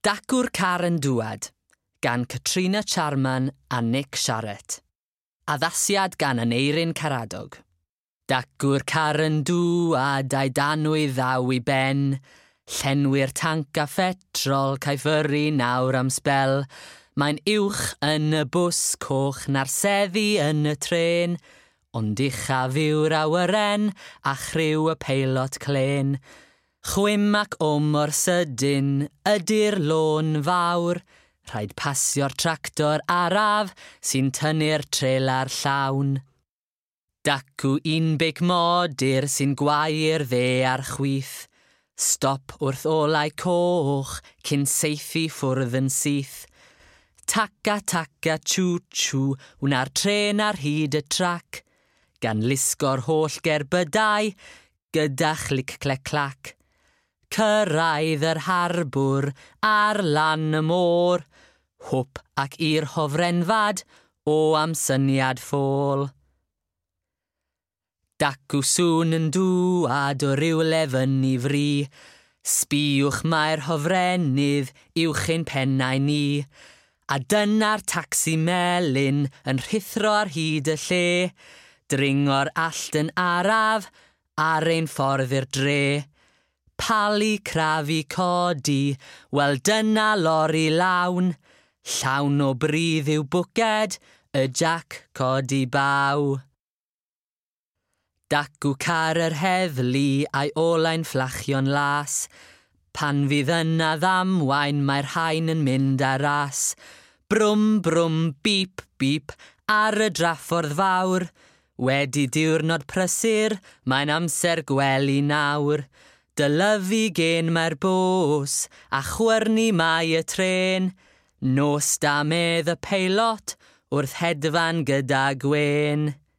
Dacw'r Car yn Dŵad gan Katrina Charman a Nick Sharratt. Addasiad gan Aneirin Karadog. Dacw'r car yn dŵad a'i danwy ddaw i ben. Llenwi'r tanc a phetrol caiff yrru nawr am sbel. Mae'n uwch yn y bws coch na'r seddi yn y trên. Ond uchaf yw'r awyren a chriw y peilot clên. Chwim ac o mor sydyn ydy'r lôn fawr. Rhaid pasio'r tractor araf sy'n tynnu'r trelar llawn. Dacw un beic modur sy'n gwau'r dde a'r chwith. Stop wrth olau coch cyn saethu ffwrdd yn syth. Taca taca chw chw wna'r trên ar hyd y trac. Gan lusgo'r holl gerbydau gyda chlic clec clac. Cyrraedd yr harbwr ar lan y môr. Hwp ac i'r hofrenfad o am syniad ffôl. Dacw sŵn yn dŵad o rywle fyny fri. Sbïwch mae'r hofrennydd uwch ein pennau ni. A dyna'r tacsi melyn yn rhuthro ar hyd y lle. Dringo'r allt yn araf ar ein ffordd i'r dre. Palu, crafu, codi, wel dyna lori lawn. Llawn o bridd yw bwced, y jac codi baw. Dacw car yr heddlu a'i olau'n fflachio'n las. Pan fydd yna ddamwain mae'r rhain yn mynd ar ras. Brwm, brwm, bip, bip, ar y draffordd fawr. Wedi diwrnod prysur, mae'n amser gwely nawr. Dylyfu gen mae'r bws, a chwyrnu mae y trên. Nos da medd y peilot wrth hedfan gyda gwên.